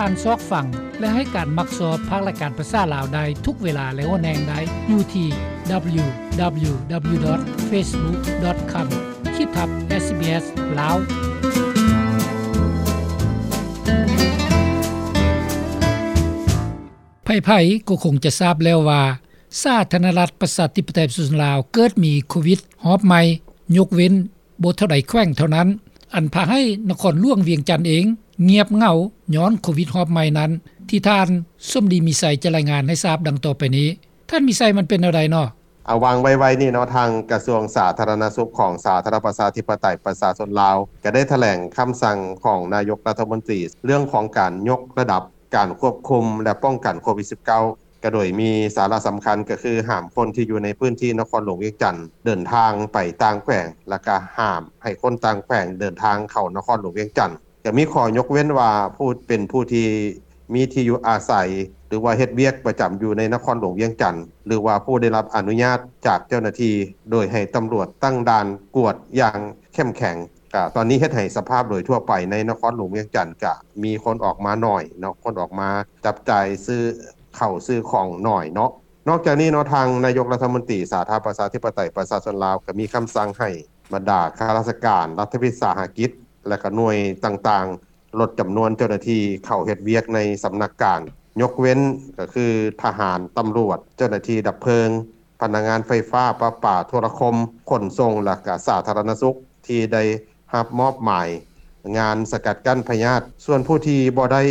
ທ່ານຊອກຟັງ ແລະ ໃຫ້ການມັກຊອບພາກລາຍການພາສາລາວໄດ້ທຸກເວລາ ແລະ ຫົວແຫ່ງໄດ້ຢູ່ທີ່ www.facebook.com ຂີດທັບ SBS ລາວ. ໃຜໆກໍຄົງຈະຊາບແລ້ວວ່າ ສາທາລະນະລັດ ປະຊາທິປະໄຕ ປະຊາຊົນລາວ ເກີດມີໂຄວິດຮອບໃໝ່, ຍົກເວັ້ນ ບໍ່ເທົ່າໃດແຂວງເທົ່ານັ້ນ, ອັນພາໃຫ້ນະຄອນຫຼວງວຽງຈັນເອງງຽບເຫງົາຍ້ອນໂຄວິດຮອບໃໝ່ນັ້ນ, ທີ່ທ່ານສົມດີ ມີໄຊ ຈະລາຍງານໃຫ້ຊາບດັ່ງຕໍ່ໄປນີ້. ທ່ານມີໄຊ, ມັນເປັນແນວໃດເນາະ? ອາ ຫວ່າງໄວໆນີ້ເນາະ, ທາງກະຊວງສາທາລະນະສຸກຂອງສາທາລະນະລັດປະຊາທິປະໄຕປະຊາຊົນລາວ ກໍໄດ້ຖະແຫຼງຄຳສັ່ງຂອງນາຍົກລັດຖະມົນຕີ ເລື່ອງຂອງການຍົກລະດັບການຄວບຄຸມ ແລະ ປ້ອງກັນໂຄວິດສິບເກົ້າ ກໍໂດຍມີສາລະສຳຄັນກໍຄື ຫ້າມຄົນທີ່ຢູ່ໃນພື້ນທີ່ນະຄອນຫຼວງວຽງຈັນເດີນທາງໄປຕ່າງແຂວງ ແລ້ວກໍຫ້າມໃຫ້ຄົນຕ່າງແຂວງເດີນທາງເຂົ້ານະຄອນຫຼວງວຽງຈັນ. ກໍມີຂໍ້ຍົກເວັ້ນວ່າ ຜູ້ ເປັນຜູ້ທີ່ມີທີ່ຢູ່ອາໄສ ຫຼືວ່າເຮັດວຽກປະຈຳຢູ່ໃນນະຄອນຫຼວງວຽງຈັນ ຫຼືວ່າຜູ້ໄດ້ຮັບອະນຸຍາດຈາກເຈົ້າໜ້າທີ່ ໂດຍໃຫ້ຕຳຫຼວດຕັ້ງດ່ານກວດຢ່າງເຂັ້ມແຂງ. ກະຕອນນີ້ເຮັດໃຫ້ສະພາບໂດຍທົ່ວໄປໃນນະຄອນຫຼວງວຽງຈັນ ກະມີຄົນອອກມາໜ້ອຍເນາະ, ຄົນອອກມາຈັບຈ່າຍຊື້ເຂົ້າຊື້ຂອງໜ້ອຍເນາະ. ນອກຈາກນີ້ເນາະ, ທາງນາຍົກລັດຖະມົນຕີສາທາລະນະລັດປະຊາທິປະໄຕປະຊາຊົນລາວ ກໍມີຄຳສັ່ງໃຫ້ບັນດາຂ້າລາຊະການ, ລັດຖະວິສາຫະກິດ ແລະ ກະໜ່ວຍຕ່າງໆ ລົດຈຳນວນເຈົ້າໜ້າທີ່ເຂົ້າເຮັດວຽກໃນສຳນັກງານ, ຍົກເວັ້ນກໍຄືທະຫານ, ຕຳຫຼວດ, ເຈົ້າໜ້າທີ່ດັບເພີງ, ພະນັກງານໄຟຟ້າ, ປະປາ, ໂທລະຄົມ, ຂົນສົ່ງ ແລະ ກະສາທາລະນະສຸກ ທີ່ໄດ້ຮັບມອບໝາຍງານສະກັດກັ້ນພະຍາດ. ສ່ວນຜູ້ທີ່ບໍ່ໄດ້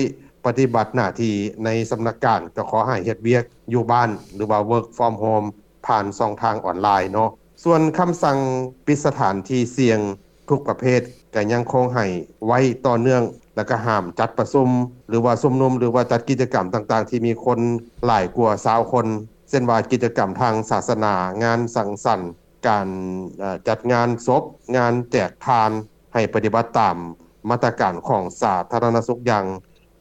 ປະຕິບັດໜ້າທີ່ໃນສຳນັກງານ ກໍຂໍໃຫ້ເຮັດວຽກຢູ່ບ້ານ ຫຼືວ່າ work from home ຜ່ານຊ່ອງທາງອອນລາຍເນາະ. ສ່ວນຄຳສັ່ງປິດສະຖານທີ່ສ່ຽງທຸກປະເພດ ກໍຍັງຄົງໃຫ້ໄວ້ຕໍ່ເນື່ອງ ແລະ ກໍຫ້າມຈັດປະຊຸມ ຫຼືວ່າຊຸມນຸມ ຫຼືວ່າຈັດກິດຈະກຳຕ່າງໆ ທີ່ມີຄົນຫຼາຍກວ່າຊາວຄົນ ເຊັ່ນວ່າກິດຈະກຳທາງສາສະໜາ, ງານສັງສັນ, ການ ເອີ ຈັດງານສົບ, ງານແຈກທານ ໃຫ້ປະຕິບັດຕາມມາດຕະການຂອງສາທາລະນະສຸກຢ່າງ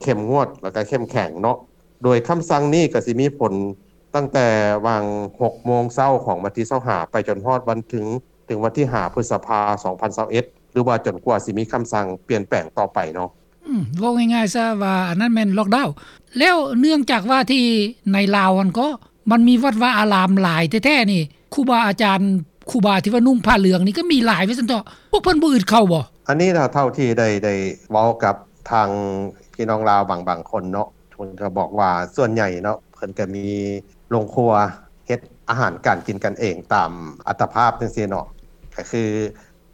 ເຂັ້ມງວດ ແລະ ກໍເຂັ້ມແຂງເນາະ. ໂດຍຄຳສັ່ງນີ້ກໍຊິມີຜົນຕັ້ງແຕ່ຫວ່າງຫົກໂມງເຊົ້າຂອງວັນທີຊາວຫ້າ ໄປຈົນຮອດວັນເຖິງ ເຖິງວັນທີຫ້າ ພຶດສະພາ ສອງພັນຊາວເອັດ ຫຼືວ່າຈົນກວ່າຊິມີຄຳສັ່ງປ່ຽນແປງຕໍ່ໄປເນາະ. ອືມ ເວົ້າງ່າຍໆຊະວ່າ ອັນນັ້ນແມ່ນລັອກດາວ. ແລ້ວເນື່ອງຈາກວ່າທີ່ໃນລາວຫັ້ນກໍ ມັນມີວັດວາອາລາມຫຼາຍແທ້ໆນີ້ ຄູບາອາຈານ ຄູບາທີ່ວ່ານຸ່ງຜ້າເຫຼືອງນີ້ກໍມີຫຼາຍວ່າຊັ້ນເຖາະ, ພວກເພິ່ນບໍ່ອຶດເຂົ້າບໍ່? ອັນນີ້ນະ ເທົ່າທີ່ໄດ້ ໄດ້ເວົ້າກັບທາງພີ່ນ້ອງລາວບາງ ບາງຄົນເນາະ, ເພິ່ນກໍບອກວ່າສ່ວນໃຫຍ່ເນາະ ເພິ່ນກໍມີໂຮງຄົວເຮັດອາຫານການກິນກັນເອງຕາມອັດຕະພາບຈັ່ງຊີ້ເນາະ, ກໍຄື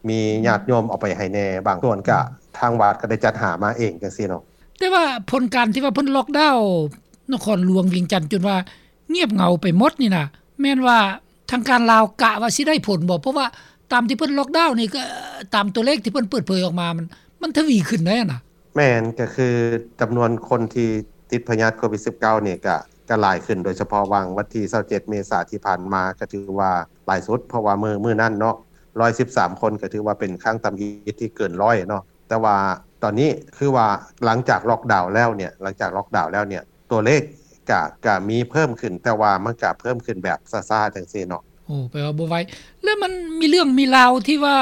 ມີຍາດໂຍມເອົາໄປໃຫ້ແດ່, ບາງສ່ວນກະທາງວັດກໍໄດ້ຈັດຫາມາເອງຈັ່ງຊີ້ເນາະ. ແຕ່ວ່າຜົນການທີ່ວ່າເພິ່ນລັອກດາວນະຄອນຫຼວງວຽງຈັນຈົນວ່າງຽບເຫງົາໄປໝົດນີ້ນະ ແມ່ນວ່າທາງການລາວກະວ່າຊິໄດ້ຜົນບໍ່? ເພາະວ່າຕາມທີ່ເພິ່ນລັອກດາວນີ້ ກໍຕາມຕົວເລກທີ່ເພິ່ນເປີດເຜີຍອອກມາ ມັນ ມັນທະວີຂຶ້ນໄດ້ນະ. ແມ່ນ, ກໍຄືຈຳນວນຄົນທີ່ຕິດພະຍາດໂຄວິດສິບເກົ້ານີ້ກະ ກະຫຼາຍຂຶ້ນ, ໂດຍສະເພາະຫວ່າງວັນທີຊາວເຈັດເມສາທີ່ຜ່ານມາ ກະຖືວ່າຫຼາຍສຸດ, ເພາະວ່າມື້ ມື້ນັ້ນເນາະ ຮ້ອຍສິບສາມຄົນ ກະຖືວ່າເປັນຄັ້ງທຳອິດທີ່ເກີນຮ້ອຍເນາະ. ແຕ່ວ່າຕອນນີ້ຄືວ່າຫຼັງຈາກລັອກດາວແລ້ວເນ່ຍ ຫຼັງຈາກລັອກດາວແລ້ວເນ່ຍ ຕົວເລກກະ ກະມີເພີ່ມຂຶ້ນ, ແຕ່ວ່າມັນກະເພີ່ມຂຶ້ນແບບຊ້າໆ ຈັ່ງຊີ້ເນາະ. ໂອ້ ແປວ່າບໍ່ໄວ. ແລ້ວມັນມີເລື່ອງມີລາວທີ່ວ່າ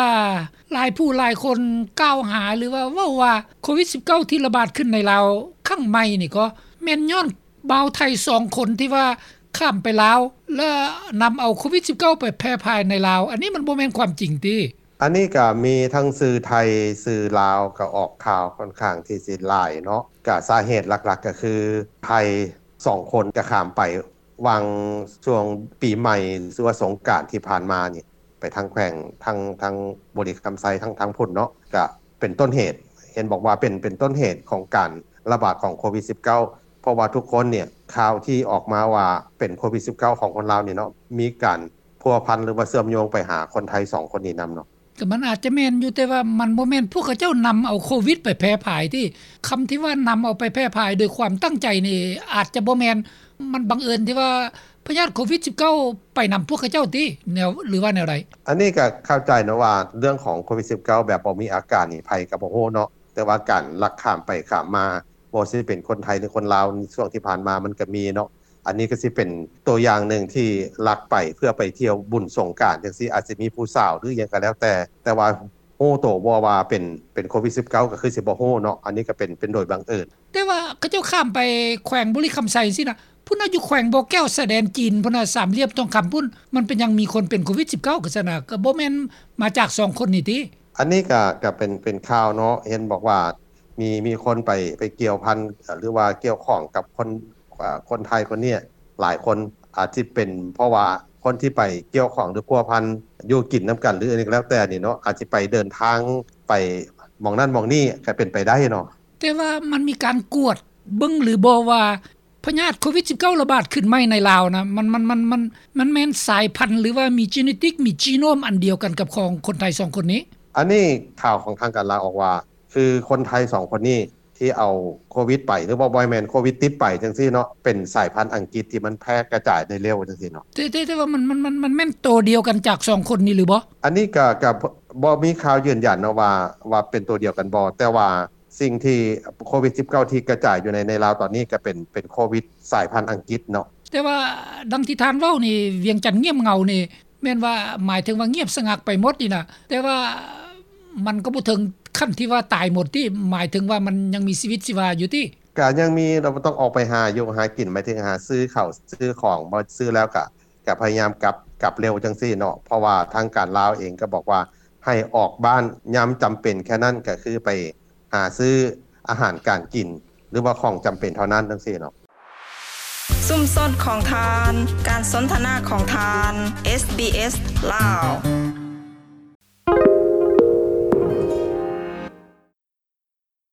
ຫຼາຍຜູ້ຫຼາຍຄົນກ່າວຫາ ຫຼືວ່າເວົ້າວ່າໂຄວິດສິບເກົ້າທີ່ລະບາດຂຶ້ນໃນລາວຄັ້ງໃໝ່ນີ້ ກໍແມ່ນຍ້ອນບ່າວໄທສອງຄົນທີ່ວ່າຂ້າມໄປລາວ ແລ້ວນຳເອົາໂຄວິດສິບເກົ້າໄປແຜ່ພາຍໃນລາວ, ອັນນີ້ມັນບໍ່ແມ່ນຄວາມຈິງຕິ? ອັນນີ້ກະມີທັງສື່ໄທ, ສື່ລາວ ກະອອກຂ່າວຂ້ອນຂ້າງທີ່ຊິຫຼາຍເນາະ. ກະສາເຫດຫຼັກໆ ກະຄືໄທສອງຄົນກະຂ້າມໄປ ຫວ່າງຊ່ວງປີໃໝ່ ຫຼືວ່າສົງການທີ່ຜ່ານມານີ້ ໄປທາງແຂວງ ທາງ ທາງບໍລິຄຳໄຊ ທາງ ທາງພຸ້ນເນາະ ກະເປັນຕົ້ນເຫດ ເຫັນບອກວ່າເປັນ ເປັນຕົ້ນເຫດຂອງການລະບາດຂອງໂຄວິດສິບເກົ້າ ເພາະວ່າທຸກຄົນເນ່ຍ ຂ່າວທີ່ອອກມາວ່າເປັນໂຄວິດສິບເກົ້າຂອງຄົນລາວນີ້ເນາະ ມີການພົວພັນ ຫຼືວ່າເຊື່ອມໂຍງໄປຫາຄົນໄທສອງຄົນນີ້ນຳເນາະ. ກໍມັນອາດຈະແມ່ນຢູ່, ແຕ່ວ່າມັນບໍ່ແມ່ນພວກເຂົາເຈົ້ານຳເອົາໂຄວິດໄປແຜ່ພາຍຕິ? ຄຳທີ່ວ່ານຳເອົາໄປແຜ່ພາຍໂດຍຄວາມຕັ້ງໃຈນີ້ ອາດຈະບໍ່ແມ່ນ, ມັນບັງເອີນທີ່ວ່າພະຍາດໂຄວິດສິບເກົ້າໄປນຳພວກເຂົາເຈົ້າຕິ ແນວ ຫຼືວ່າແນວໃດ? ອັນນີ້ກໍເຂົ້າໃຈເນາະວ່າເລື່ອງຂອງໂຄວິດສິບເກົ້າແບບບໍ່ມີອາການນີ້ ໃຜກໍບໍ່ຮູ້ເນາະ, ແຕ່ວ່າການລັກຂ້າມໄປຂ້າມມາ ບໍ່ວ່າຊິເປັນຄົນໄທ ຫຼື ຄົນລາວ ໃນຊ່ວງທີ່ຜ່ານມາມັນກໍມີເນາະ. ອັນນີ້ກໍຊິເປັນຕົວຢ່າງໜຶ່ງທີ່ລັກໄປເພື່ອໄປທ່ຽວບຸນສົງການຈັ່ງຊີ້ ອາດຊິມີຜູ້ສາວ ຫຼື ຫຍັງກໍແລ້ວແຕ່, ແຕ່ວ່າ ຮູ້ໂຕບໍ່ວ່າເປັນ ເປັນໂຄວິດສິບເກົ້າ ກໍຄືຊິບໍ່ຮູ້ເນາະ. ອັນນີ້ກໍເປັນ ເປັນໂດຍບັງເອີນ. ແຕ່ວ່າເຂົາເຈົ້າຂ້າມໄປແຂວງບໍລິຄຳໄຊຊີ້ນະ ພຸ້ນນະ ຢູ່ແຂວງບໍ່ແກ້ວ ຊາຍແດນຈີນພຸ້ນນະ ສາມຫຼ່ຽມທອງຄຳພຸ້ນ ມັນເປັນຫຍັງມີຄົນເປັນໂຄວິດສິບເກົ້າ ຄືຊັ້ນນະ ກໍບໍ່ແມ່ນມາຈາກສອງຄົນນີ້ຕິ? ອັນນີ້ກໍ ກໍເປັນ ເປັນຂ່າວເນາະ ເຫັນບອກວ່າ ມີ ມີຄົນໄປ ໄປກ່ຽວພັນ ເອີ່ ຫຼືວ່າກ່ຽວຂ້ອງກັບຄົນ ເອີ່ ຄົນໄທຄົນນີ້ຫຼາຍຄົນ ອາດຊິເປັນເພາະວ່າຄົນທີ່ໄປກ່ຽວຂ້ອງ ຫຼື ພົວພັນ ຢູ່ກິນນຳກັນ ຫຼື ອັນນີ້ກໍແລ້ວແຕ່ນີ້ເນາະ ອາດຊິໄປເດີນທາງໄປໝ່ອງນັ້ນໝ່ອງນີ້ ກໍເປັນໄປໄດ້ເນາະ. ແຕ່ວ່າມັນມີການກວດເບິ່ງຫຼືບໍ່ວ່າ ພະຍາດໂຄວິດສິບເກົ້າ ລະບາດຂຶ້ນໃໝ່ໃນລາວນະ ມັນ ມັນ ມັນ ມັນ ມັນແມ່ນສາຍພັນ ຫຼືວ່າມີເຈເນຕິກ ມີຈີໂນມອັນດຽວກັນກັບຂອງຄົນໄທສອງຄົນນີ້? ອັນນີ້ຂ່າວຂອງທາງການລາວອອກວ່າ ຄືຄົນໄທສອງຄົນນີ້ທີ່ເອົາໂຄວິດໄປ ຫຼືວ່າບໍ່ແມ່ນໂຄວິດຕິດໄປຈັ່ງຊີ້ເນາະ ເປັນສາຍພັນອັງກິດທີ່ມັນແຜ່ກະຈາຍໄດ້ເລັວຈັ່ງຊີ້ເນາະ. ແຕ່ ແຕ່ ແຕ່ວ່າມັນ ມັນ ມັນ ມັນແມ່ນໂຕດຽວກັນຈາກສອງຄົນນີ້ຫຼືບໍ່? ອັນນີ້ກະ ກະບໍ່ມີຂ່າວຢືນຢັນເນາະວ່າ ວ່າເປັນໂຕດຽວກັນບໍ່ ແຕ່ວ່າ ສິ່ງທີ່ໂຄວິດສິບເກົ້າ ທີ່ກະຈາຍຢູ່ໃນ ໃນລາວຕອນນີ້ກໍເປັນ ເປັນໂຄວິດສາຍພັນອັງກິດເນາະ. ແຕ່ວ່າດັ່ງທີ່ທ່ານເວົ້ານີ້ ວຽງຈັນງຽບເຫງົານີ້ ແມ່ນວ່າໝາຍເຖິງວ່າງຽບສະຫງັກໄປໝົດນີ້ນະ ແຕ່ວ່າມັນກໍບໍ່ເຖິງຂັ້ນທີ່ວ່າຕາຍໝົດຕິ ໝາຍເຖິງວ່າມັນຍັງມີຊີວິດຊີວາຢູ່ຕິ? ກະຍັງມີ ເຮົາຕ້ອງອອກໄປຫາຢູ່ຫາກິນ ໝາຍເຖິງຫາຊື້ເຂົ້າຊື້ຂອງ ບໍ່ຊື້ແລ້ວກະ ກະພະຍາຍາມກັບ ກັບເລັວຈັ່ງຊີ້ເນາະ ເພາະວ່າທາງການລາວເອງກໍບອກວ່າໃຫ້ອອກບ້ານຍາມຈຳເປັນແຄ່ນັ້ນ ກໍຄືໄປຫາຊື້ອາຫານການກິນ ຫຼືວ່າຂອງຈຳເປັນເທົ່ານັ້ນຈັ່ງຊີ້ເນາະ. ຊຸມຊົນຂອງທ່ານ ການສົນທະນາຂອງທ່ານ ເອສບີເອສ ລາວ.